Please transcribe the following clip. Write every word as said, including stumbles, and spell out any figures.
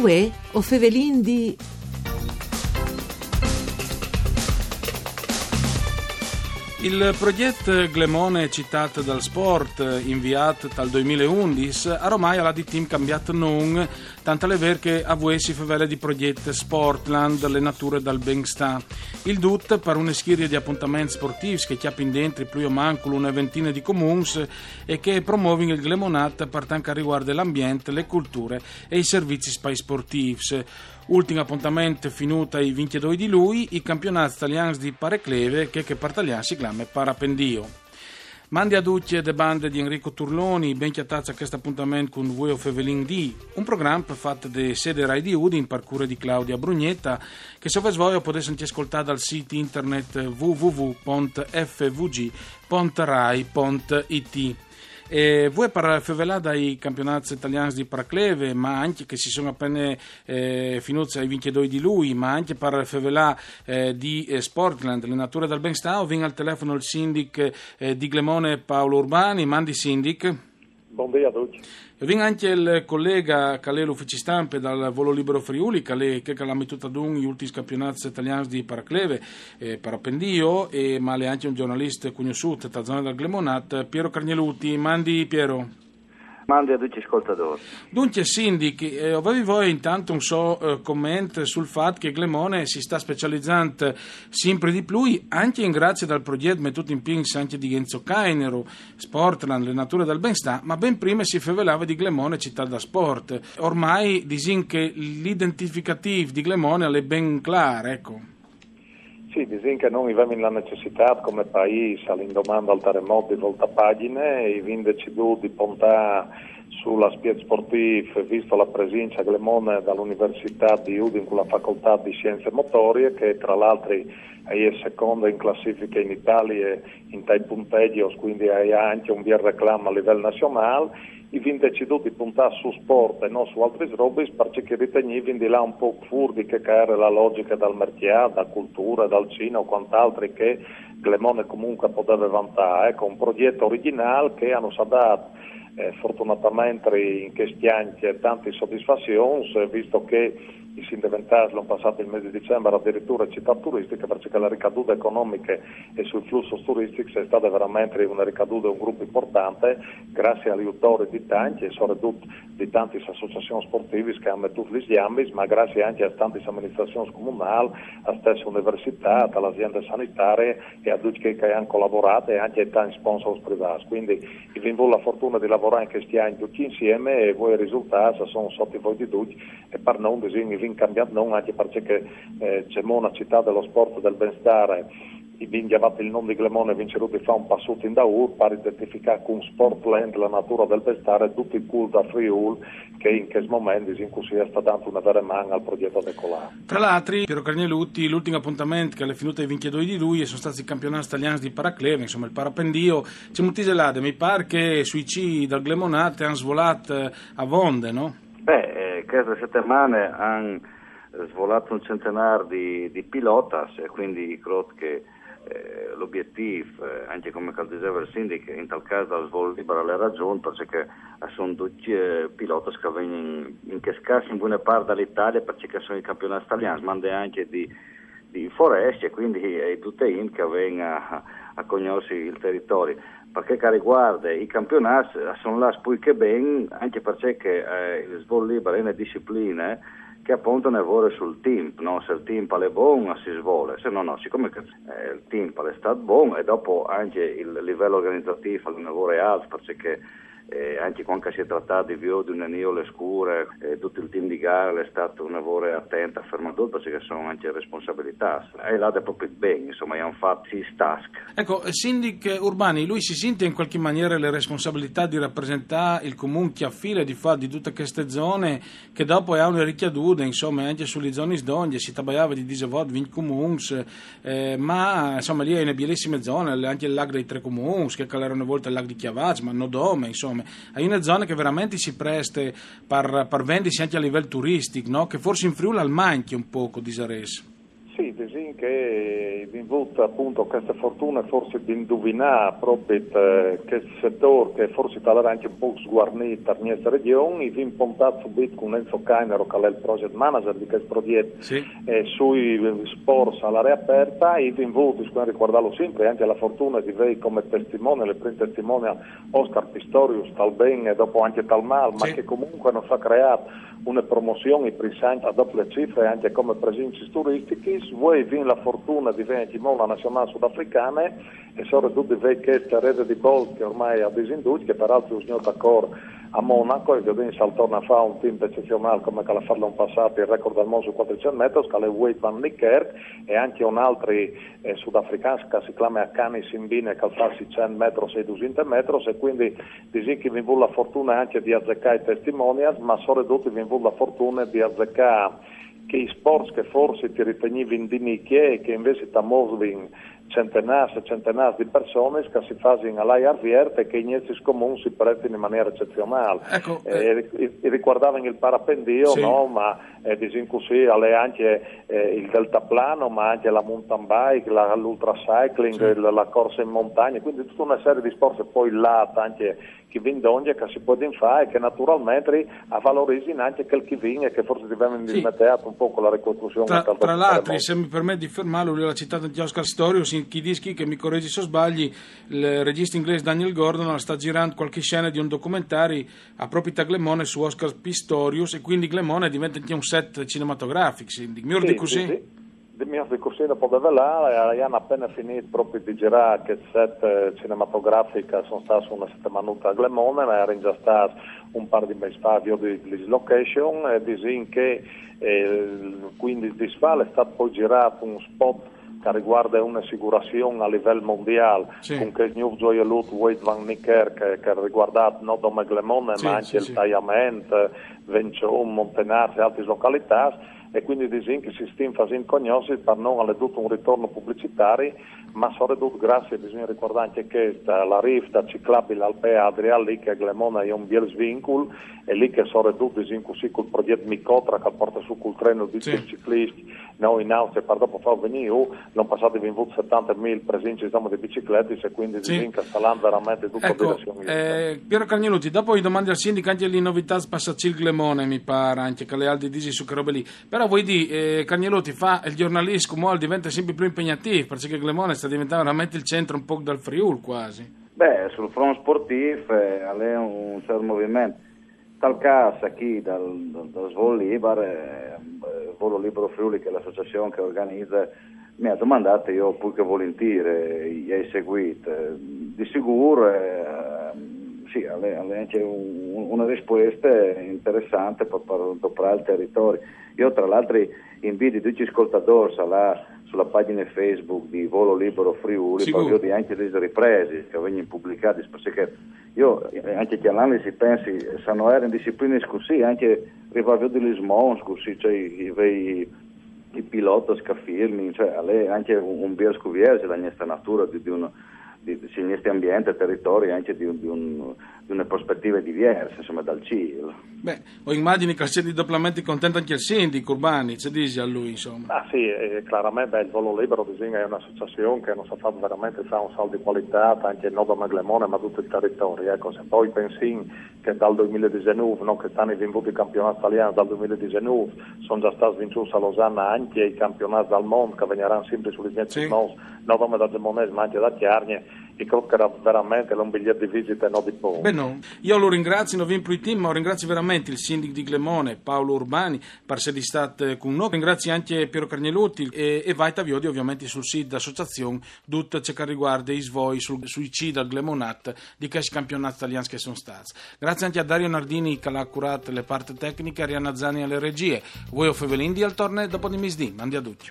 Uè, o fevelin di Il proget Glemone Cità dal Sport, inviat dal duemilaundis, aromai al à di timp cambiât non, tant al è vêr che a vuê si fevele di proget Sportland, le nature dal benstà. Il dut par une schirie di apontaments sportîfs che a cjapin dentri plui o mancul une ventine di comuns e che a promovin il Glemonat par tant che al rivuarde l'ambient, le culture e i servizis pai sportîfs. Ultin apontament finût ai vincjedoi di Lui, i campionâts talians di paracleve, che par talian si clame parapendio. Mandi a ducj de bande di Enrico Turloni, ben cjatâts a chest apontament cun Vuê o fevelin di, un program fat de sede Rai di Udin par cure di Claudia Brugnetta, che se o vês voie o podês ancje scoltâ dal sît internet www.fvg.rai.it. E vuê par fevelâ dai campionâts talians di paracleve, ma ancje che si son a pene eh, finûts ai vincjedoi di Lui, ma ancje par fevelâ eh, di eh, Sportland, le nature dal benstà, o vin al telefono il sindic eh, di Glemone Paolo Urbani. Mandi sindic. Bon dì a ducj. O vin ancje il colega che al è l'uffici stampe dal Volo Libero Friuli, che al è chel che al à metût adun i ultins campionâts talians di paracleve, eh, parapendio, e, ma al è ancje un gjornalist cognossût te zone dal Glemonat, Piero Carneluti. Mandi Piero. Mandi a ducj i scoltadôrs. Duncje, sindic, eh, o vevi voie intant un so eh, comment sul fat che Glemone si sta specializant simpri di plui, ancje in grazie dal proget metût in pîts ancje di Enzo Cainero, Sportland, le nature dal benstà, ma ben prime si fevelave di Glemone cità dal sport. Ormai disìn che l'identificatîf di Glemone al è ben clâr, eco. Sì, disìn che nô o vevin la necessitât come paîs, a l'indoman dal teremot, di voltâ pagjine e o vin decidût di pontâ sul aspiet sportîf, visto la presince a Glemone da la Universitât di Udin cu la Facoltât di Sienze Motorie, che tra l'altri e je seconde in classifiche in Italie intai puntegjios, cuindi e à ancje un biel reclam a livel nazionâl. O vin decidût di pontâ sul sport e no su altris robis, parcè che o ritegnivin di lâ un pôc fûr di chê che e jere la logjiche dal marcjât, da culture, dal cine o cuant'altri che Glemone comunque e podeve vantâ. Eco, un proget origjinâl che nus à dât eh, fortunatamentri in chescj agns tantis sodisfazions, eh, visto che o sin deventâts l'an passât il mês di Dicembar adiriture citât turistiche, parcè che la ricadude economiche e sui flussos turistics e je stade verementri une ricadude un grup impuartante, graciis al jutori di tancj e soredut di tantis associazions sportivis che a àn metût lis gjambis, ma graciis ancje a tantis aministrazions comunâls, a stesse universitât, a la aziende sanitarie e a ducj chei che a àn colaborât e ancje a tancj sponsors privâts. Cuindi o vin vût la fortune di lavorâ in chescj agns ducj insiemi e vuê i risultâts a son sot i voi di ducj e par nô, disìn, o vin cambiât non ancje parcè che eh, Glemone, citât dal sport e dal benstâr, o vin gjavât il non di Glemone e o vin cirût di fâ un passut indaûr par identificâ cun Sportland, la nature dal benstâr, dut il cûr dal Friûl, che in chest moment, disìn cussì, al sta dant une vere man al proget a decolâ. Tra l'altri, Piero Carneluti, l'ultin apontament che al è finût ai vincjedoi di Lui e a son stâts i campionâts talians di paracleve, insome, il parapendio. Cemût isal lade? Mi pâr che sui cîi dal Glemonat a àn svolât eh, avonde, no? Beh, eh, cheste setemane a àn svolât un centenâr di, di pilotas e cuindi o crôt che eh, l'obietîf, eh, ancje come che al diseve il sindic, intal câs dal svol libar al è ragiont, parcè che a son ducj eh, pilotas che a vegnin in chest câs in buine part da la Italie, parcè che a son i campionâts talians, ma ancje di, di foreste, e cuindi e je dute int che a ven a, a cognossi il teritori. Par chel che al rivuarde i campionâts, a son lâts plui che ben, ancje parcè che eh, il svol libar e je une discipline che a ponte une vore sul timp, no? Se il timp al è bon, si svole, se no no, sicome che eh, il timp al è stât bon e dopo ancje il livel organizatîf al è une vore alt, parcè che eh, ancje cuant che si è tratât di viodi une nijole scure, eh, dut il team di gare al è stât une vore atent a fermâ dut, parcè che a son ancje responsabilitâts. E je lade propit ben, insome, a àn fat sis tasks. Eco, eh, sindic Urbani, lui si sint in cualchi maniere le responsabilitât di rapresentâ il comun che al à file di fat di dute cheste zone, che dopo e à une ricjadude, insome, ancje su lis zonis dongje, si tabaiave di disevot, vincj comuns, eh, ma, insome, li e je une bielissime zone, ancje il lâc dai Trê Comuns, che al jere une volte il lâc di Cjavaç, ma no dome, insome. E je une zone che verementri si preste par, par vendisi ancje a livel turistic, no? Che forsit in Friûl al mancje un pôc, o disarês. Sì, Disìn che i vin vût apont cheste fortune forsit di induvinâ propit, eh, chest setôr che forsit al jere ancje un pôc sguarnît par nestre regjon, i vin pontât subit cun Enzo Cainero, che al è il project manager di chest progjet, eh, sui sports a l'aria aperta, i vin vût, si pues ricuardâlu simpri, ancje la fortune di vê come testimoni, il prin testimoni Oscar Pistorius, tal ben e dopo ancje tal mâl, ma che comuncue nus à creât une promozion, i prins agns a dopie cifre, ancje come presincis turistichis. Vuê i vin la fortune di vê ancjemò la nazionâl sudafricane, e soredut di vê cheste rede di bolt che ormai e à disindût, che peraltri si à gnût a cor a Monaco, e viodìn se al torne a fâ un timp ecezionâl come che al à fat l'an passât, il record dal mont sui cuatricent metris, che al è Wayde van Niekerk, e ancje un altri, eh, sudafrican, che si clame Akani Simbine, che al fâs seicent metris e dusinte metris, e cuindi disìn che i vin vût la fortune ancje di azecâ i testimonials, ma soredut i vin vût la fortune di azecâ chei sports che forsit i ritegnivin di nicje e che invezit a movin centenârs e centenârs di personis, che si fasin a aiar viert e che i nestis comuns si prestin in maniere ecezionâl. Eco, eh, i, i ricuardavin il parapendio, no? Ma, eh, disìn cussì, al è ancje, eh, il deltaplano, ma ancje la mountain bike, la, l'ultracycling, la, la corse in montagne, cuindi dute une serie di sports, e po il lât ancje, che i vin dongje, che si puedin fâ e che naturalmentri a valorisin ancje chel che i vin e che forsit i vevin dismeteât un pôc cu la ricostruzion. Tra, tra l'altri, se mi permet di fermâlu, lu à citât ancje Oscar Pistorius, chi al dîs, che mi corregji se o sbalii, il regist inglês Daniel Gordon al sta zirant cualchi scene di un documentari a propit a Glemone su Oscar Pistorius, e cuindi Glemone e devente ancje un set cinematografic, si, di miôr di cussì? Di miôr di cussì no podeve lâ, a àn a pene finît propit di zirâ chest set, eh, cinematografic, a son stâts une setemanute a Glemone, ma a jerin za stâts un pâr di mês fa a viodi lis location, e disìn che, eh, cuindis dîs fa al è stât po zirât un spot che al rivuarde une sigurazion a livel mondiâl, cun chest gnûf zoielut Wayde van Niekerk, che, che al rivuarde no dome Glemone, ma ancje il Taiament, Vençon, Montenars e altris localitâts, e cuindi disìn che si stin fasint cognossi, par nô al è dut un ritorn publicitari, ma soredut graciis, disìn, ricuardant ancje chest, a la rifta ciclabil Alpea Adria, li che a Glemone e je un biel svincul, e li che soredut, disìn cussì, cul progjet Micotra, che al puarte sù cul tren ducj i cicliscj, no, in Austrie, par dopo fâus vignî jù, l'an passât i vin vût setante mil presincis dome di bicicletis, e cuindi disìn che al sta lant verementri dut in direzion juste. Eco, eh, Piero Carneluti, dopo i domandi al sindic ancje lis novitâts par Sacil Glemone, mi pâr ancje che al è alc di dî su chê robe li. Però vuei dî, eh, Carneluti, fâ il gjornalist cumò al devente simpri plui impegnatîf, parcè che Glemone al sta deventant verementri il centri un pôc dal Friûl cuasi. Beh, sul front sportîf, eh, al è un, un cert moviment. Tal câs chi dal, dal, dal Svol Libar, eh, Volo Libero Friuli, che e je la associazion che e organize, mi à domandât, jo plui che volintîr, eh, i ai seguît. Eh, di sigûr, eh, sì, al è, al è ancje un, une rispueste interessante par, par doprâ il teritori. Jo, tra l'altri, i invidi ducj i scoltadôrs a lâ su la pagjine Facebook di Volo Libero Friuli, par viodi ancje lis ripresis che a vegnin publicadis, parcè che jo, eh, ancje cjalantlis i pensi, se no jerin disciplinis cussì, ancje rivâ a viodi lis monts cussì, cioè i, i, i pilots che a filmin, cioè al è ancje un, un biel scuvierzi la nestre nature di, di un, di, di, sì, il nestri ambient, teritori, ancje di un, di un, di une prospetive diverse, insome, dal cîl. Beh, o imagjini che al sedi doplamentri content ancje il sindic Urbani, ce disial lui, insome? Ah sì, eh, claramentri, beh, il Volo Libero, disìn, e je une associazion che nus à fat verementri fâ un salt di cualitât, ancje no dome Glemone, ma dut il teritori. Eco, se po i pensìn che dal doi mil e disenûf, no, chest an i vin vût i campionâts talians, dal doi mil e disenûf a son za stâts vincûts a Losanna ancje i campionâts dal mont, che a vegnaran simpri su lis nestis monts, no dome dal Glemonese, ma ancje da Cjargne, e crôt che al jere verementri un biliet di visite, no di pôc. Benon, jo lu ringrazi, no vin plui timp, ma o ringrazi verementri il sindic di Glemone, Paolo Urbani, par sedi stât, eh, cun nô. O ringrazi ancje Piero Carneluti e, e o vait a viodi ovviamentri sul sît de associazion dut ce che al rivuarde i svois sul, sui cîi dal Glemonat di chescj campionâts talians che a son stâts. Graciis ancje a Dario Nardini che al à curât la part tecniche, Arianna Zani a lis regjiis. Vuê o Fevelin di al torne dopo di misdì. Mandi a ducj.